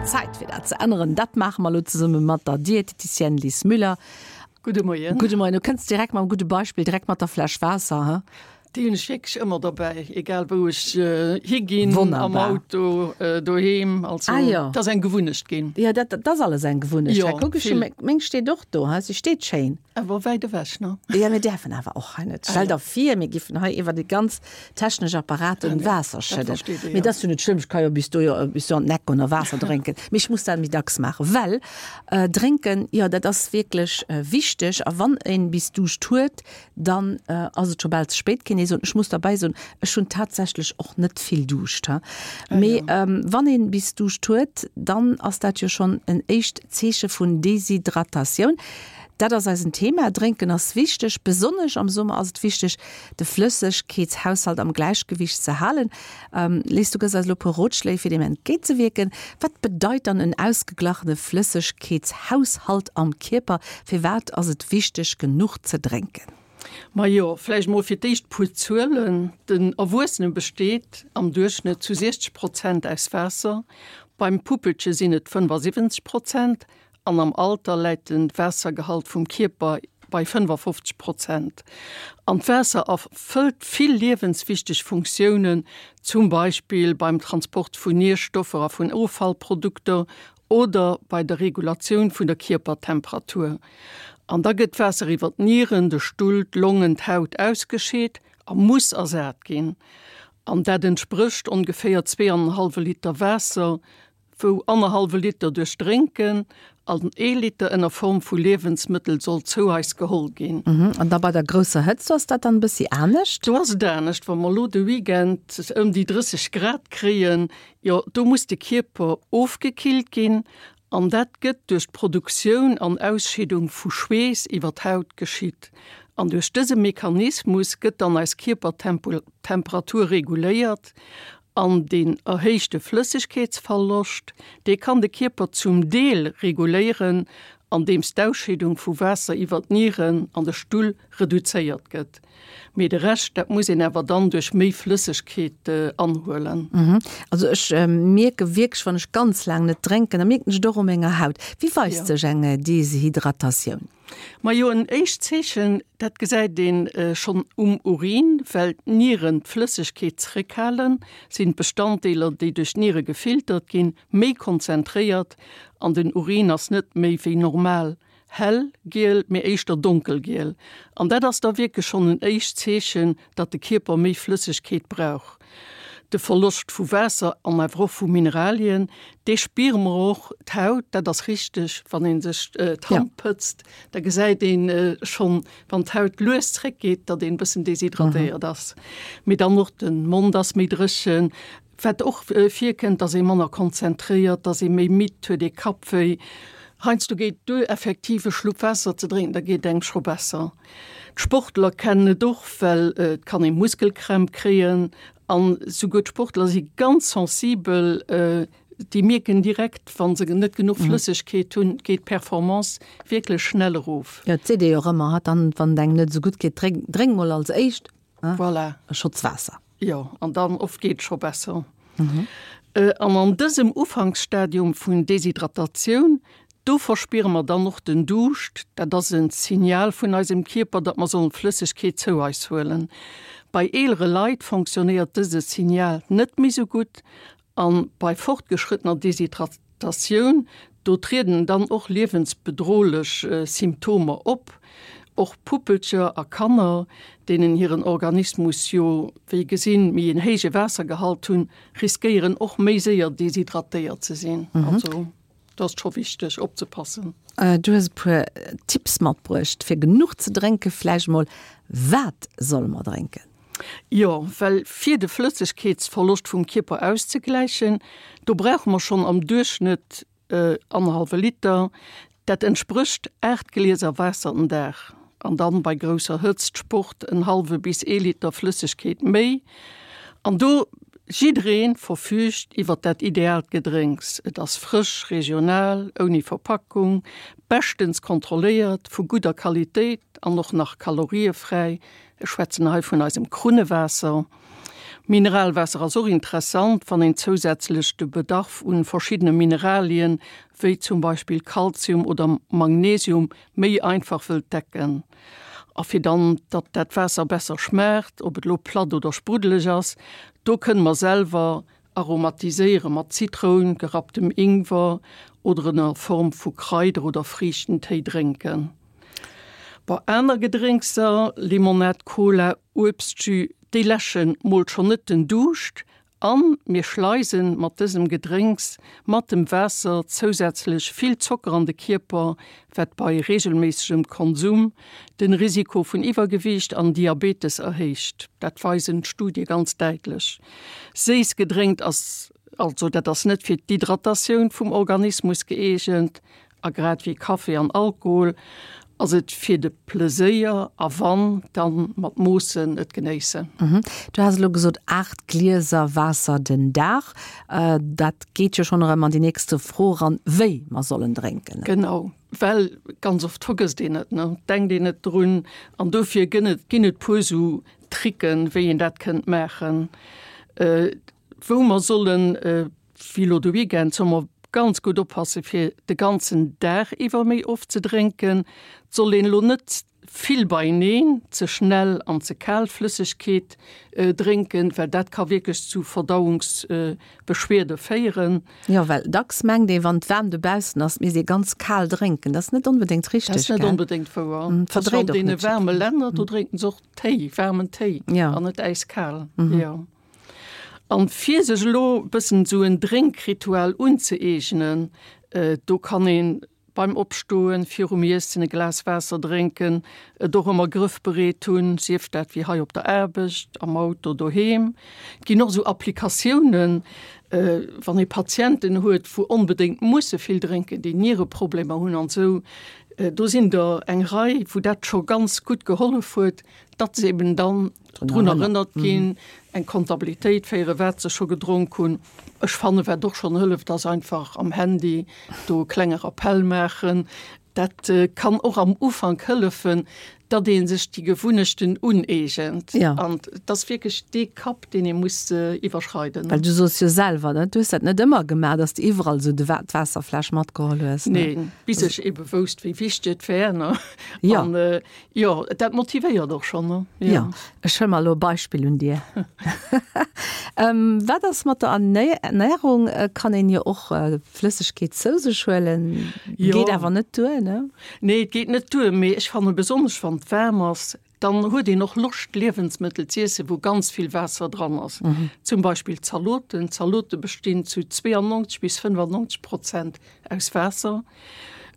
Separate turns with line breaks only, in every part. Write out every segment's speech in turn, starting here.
Zäit fir dat ze änneren. Dat maache mer elo zesumme mat der Dieteticienne Lis Müller.
Gudde Moien.
Gudde Moien. Du kënns direkt mam gudde Beispill, direkt mat der Fläsch Waasser, he?
Déi hunn ech wierklech ëmmer derbäi, egal wou ech higinn, am Auto, doheem. Also
ah, jo.
Dat ass eng Gewunnecht ginn.
Jo, dat, dat ass alles eng Gewunnecht. Jo, kuck ech, meng steet och do, he? Si steet schéin.
Awer wäit ewech, ne?
Jo, mir däerfen awer och hei net. Stell der vir, mir giffen hei iwwer déi ganz technesch Apparaten Waasser schëdden. Mee dat ass jo net schlëmm, ech ka jo bis do bis do an den Eck goen a Waasser drénken. Mee ech muss dat méi dacks maachen, well drénken, jo, dat ass wierklech wichteg. A wann een bis Duuscht huet, dann ass et scho bal ze spéit, kéint ee soen. Ech muss derbäi soen, ech hunn tatsächlech och net vill Duuscht. Mee wann een bis Duuscht huet, dann ass dat jo schonn en éischt Zeeche vun Deshydratatioun. Dat ass eisen Thema. Drénken ass wichteg. Besonnesch am Summer ass et wichteg, de Flëssegkeetshaushalt am Gläichgewicht ze halen. Liz, du gëss eis elo e puer Rotschléi, fir deem entgéintzewierken. Wat bedeit dann en ausgeglachene Flëssegkeetshaushalt am Kierper? Firwat ass et wichteg, genuch ze drénken?
Majo, vläicht mol fir d'éischt puer Zuelen, Den Erwuessene besteet am Duerchschnëtt zu 60 Prozent aus Waasser, beim Puppelche sinn et 75 Prozent An am Alter läit de Waassergehalt vum Kierper bei 55 Prozent. An d'Waasser erfëllt vill liewenswichteg Funktiounen, zum Beispill beim Transport vun Nierstoffer a vun Offallprodukter oder bei der Regulatioun vun der Kierpertemperatur. An da gëtt d'Waasser iwwer d'Nieren, de Stull, d'Longen, d'Haut ausgescheet a muss ersat ginn. An dat entsprécht ongeféier zweeanenhallwe Liter Waasser wou annerhallwe Liter duerch Drénken an ee Liter ënner Form vu Liewensmëttel soll zou eis geholl ginn.
An da bei der grousser Hëtzt, do ass dat dann e bëssi anescht?
Do ass et anescht. Wa mer elo de Weekend ëm déi 30 Grad kréien, jo do muss de Kierper ofgekillt ginn an dat gëtt duerch d'Produktioun an Ausscheedung vu Schweess iwwer d'Haut geschitt. An duerch dëse Mechanismus gëtt dann eis Kierpertemperatur reguléiert An deen erhéichte Flëssegkeetsverloscht, dee kann de Kierper zum Deel reguléieren, andeems d'Ausscheedung vu Waasser iwwer d'Nieren an de Stull reduzéiert gëtt. Mee de Rescht, dat muss een awer dann duerch méi Flëssegkeet anhuelen.
Also ech mierke wierklech, wann ech ganz laang net drénken, da mierken ech et och u menger Haut. Wéi weist sech eng Deshydratatioun?
Majo, en éischt Zeechen, dat gesäit ee schonn um Urin, well d'Nieren d'Flëssegkeet zeréckhalen, sinn d'Bestanddeeler, déi duerch d'Niere gefiltert ginn, méi konzentréiert an den Urin ass net méi wéi normal hell giel, mee éischter donkelgiel. An dat ass da wierklech schonn en éischt Zeechen, datt de Kierper méi Flëssegkeet brauch. De Verloscht vu Waasser an awer och vu Mineralien, dee spiere mer och. D'Haut, dat ass richteg, wann ee sech d'Hand pëtzt, da gesäit ee schonn, wann d'Haut lues zréckgeet, datt een e bëssen deshydratéiert ass. Mee dann och de Mond ass méi dréchen. Wat och virkënnt, datt ee manner konzentréiert, datt ee méi midd huet, ee Kappwéi. Heiansdo geet duer, effektiv e Schlupp Waasser ze drénken, da geet engem scho besser. D'Sportler kennen et och, well et kann ee Muskelkrämp kréien an souguer d'Sportler si ganz sensibel, déi mierken direkt, wa se net genuch Flëssegkeet hunn, geet d'Performance wierklech schnell erof.
Jo, et seet ee jo och ëmmer, hat dann, wann et engem net esou gutt geet, drénk, drénk mol als éischt
Voilà.
e Schotz Waasser.
Jo, an dann oft geet et scho besser. An an dësem Ufanksstadium vun Deshydratatioun, do verspiere mer dann och den Duuscht. Dat ass e Signal vun eisem Kierper, datt mer sollen Flëssegkeet zou eis huelen. Bei eelere Leit fonctionnéiert dëse Signal net méi sou gutt A bei fortgeschrëttener Deshydratatioun, do trieden dann och liewensbedrohlech Symptomer op. Och Puppelcher a Kanner, deenen hiren Organismus jo, wéi gesinn, méi en héije Waassergehalt hunn, riskéieren och méi séier deshydratéiert ze sinn. Also do ass et scho wichteg opzepassen.
Du hues e puer Tipps matbruecht, fir genuch ze drénken. Vläicht mol, wat solle mer drénken?
Jo, well fir de Flëssegkeetsverloscht vum Kierper auszegläichen, do brauche mer schonn am Duerchschnëtt annerhallwe Liter. Dat entsprécht 8 Glieser Waasser den Dag. An dann bei grousser Hëtzt, Sport, en hallwe bis ee Liter Flëssegkeet méi. An do, jidderee verfüügt iwwer dat ideaalt Gedrénks. Et ass frësch, regional, ouni Verpackung, beschtens kontrolléiert, vu gudder Qualitéit an och nach kaloriefräi. Ech schwätzen hei vun eisem Krunnewaasser. Mineralwaasser ass och interessant, wann een zousätzlech de Bedarf un verschiddene Mineralien, wéi zum Beispill Kalzium oder Magnesium, méi einfach wëllt decken. A fir dann, datt dat Waasser besser schmaacht, ob et lo platt oder spruddeleg ass, do kënne mer selwer aromatiséiere mat Zitroun, gerapptem Ingwer oder en a Form vu Kraider oder Friichtentéi drénken. Bei aner Gedrénkser, Limonad, Cola, Uebstjus, déi läschen mol schonn net den Duuscht an mir schleisen mat dësem Gedrénks mat dem Waasser zousätzlech vill Zocker an de Kierper, wat bei reegelméissegem Konsum den Risiko vun Iwwergewiicht an Diabetes erhéicht. Dat weisen d'Studie ganz däitlech. Séiss Gedrénkt ass also dat ass net fir d'Hydratatioun vum Organismus gëeegent a grad wéi Café an Alkohol ass et fir de Pleséier a wann, dann mat Moossen et genéissen.
Du has elo gesot 8 Glieser Waasser den Dag. Dat geet jo schonn erëm an déi nächste Fro eran, wéi mer sollen drénken.
Genau, well ganz oft vergësst een et, ne, denkt een net drun an dofir gënn et ginn et puer sou Tricken, wéi een dat kënnt maachen, wou mer sollen, wéi elo de Weekend, solle mer ganz gutt oppasse fir de ganzen Dag iwwer méi oft ze drénken. Et soll een elo net vill beieneen, ze schnell an ze kal Flëssegkeet drénken, well dat ka wierklech zu Verdauungsbeschwierde féieren.
Jo, well dacks mengt ee, wann et waarm dobaussen ass, misst ee ganz kal drénken. Dat ass net onbedéngt richteg,
gell? Dat ass net onbedéngt wouer. Verdréit och net. An deene waarme Länner, do drénken se och Téi, waarmen Téi an net äiskal. Jo. An fir sech elo bëssen esou en Drénkritual unzëeegnen, do kann een beim Opstoen, virum Iessen e Glas Waasser drénken, et och ëmmer grëffbereet hunn, sief dat wéi hei op der Aarbecht, am Auto, doheem. Et ginn och esou Applikatiounen, wann ee Patienten huet, wou onbedéngt musse vill drénken, déi Niereproblemer hunn an esou, Do sinn der eng Rei, wou dat scho ganz gutt gehollef huet, datt se eben dann drun erënnert ginn, eng Kontabilitéit féieren, wat se scho gedronk hunn. Ech fannen, wat och schonn hëlleft, ass einfach am Handy do e klenge Rappell maachen. Dat kann och am Ufank hëllefen, datt ee sech déi Gewunnechten uneegent. An et ass wierklech dee Kapp, deen ee muss iwwerschreiden.
Well du soos jo selwer, ne, du hues dat net ëmmer gemaach, datt s de iwwerall esou de d'Waasserfläsch matgeholl hues,
ne? Neen, bis ech ebe wousst, wéi wichteg et wär, ne? Jo. An jo, dat motivéiert och schonn, ne?
Jo, ech huele mer elo e Beispill un dir. Wat ass mat der Ernärung? Kann een jo och Flëssegkeet zou sech huelen, geet awer net duer, ne?
Nee, et geet net duer, mee ech fanne besonnesch wann et waarm ass, dann huet een och Loscht Liewensmëttel z'iessen, wou ganz vill Waasser dran ass. Zum Beispill Zaloten. Zalote bestinn zu 92 bis 95 Prozent aus Waasser.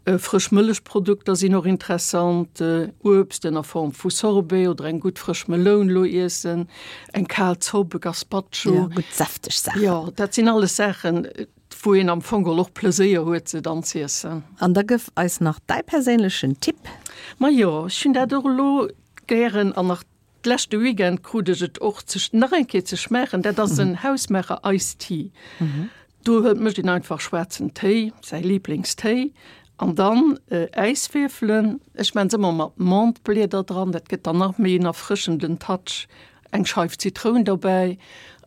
Frësch Mëllechprodukter sinn och interessant, Uebst ënner Form vu Sorbet oder eng gutt frësch Meloun lo iessen, eng kal Zopp, e Gazpacho.
Jo, gutt säfteg Saachen.
Jo, dat sinn alles Saachen, wou een am Fong och Pleséier huet se dann z'iessen.
An da gëff eis nach däi perséinlechen Tipp.
Majo, ech hunn dat och elo gären an nach d'leschte Weekend krut ech et och ze nach eng Kéier ze schmaachen. Dat ass en hausmaacher Ice Tea. Do huet mécht een einfach schwaarzen Téi, säi Liblingstéi, an dann Äiswierfelen. Ech maan se ëmmer mat Menthe-Blieder dran, dat gëtt dann nach méi en erfrëschenden Touch. Eng Scheif Zitroun dobäi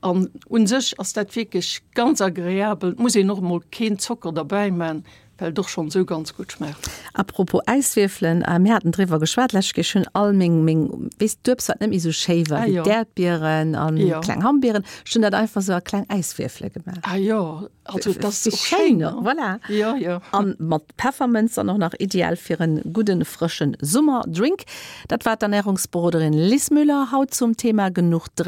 an un sech ass dat wierklech ganz agreabel. Et muss een och emol keen Zocker derbäi man, well et och schonn esou ganz gutt schmaacht.
A propos Äiswierfelen, mir haten driwwer geschwat lescht Kéier, ech hunn all meng, meng, weess d'Uebst wat net méi esou schéi war, wéi d'Äerdbieren an kleng Hammbieren, ech hunn dat einfach esou a kleng Äiswierfele gemaach.
Ah jo, also dat ass och schéin, ne?
Voilà.
Jo, jo.
An mat Peffermënz dann och nach ideal fir en gudden frëschen Summerdrink. Dat war d'Ernährungsberoderin Liz Müller haut zum Thema genuch drénken.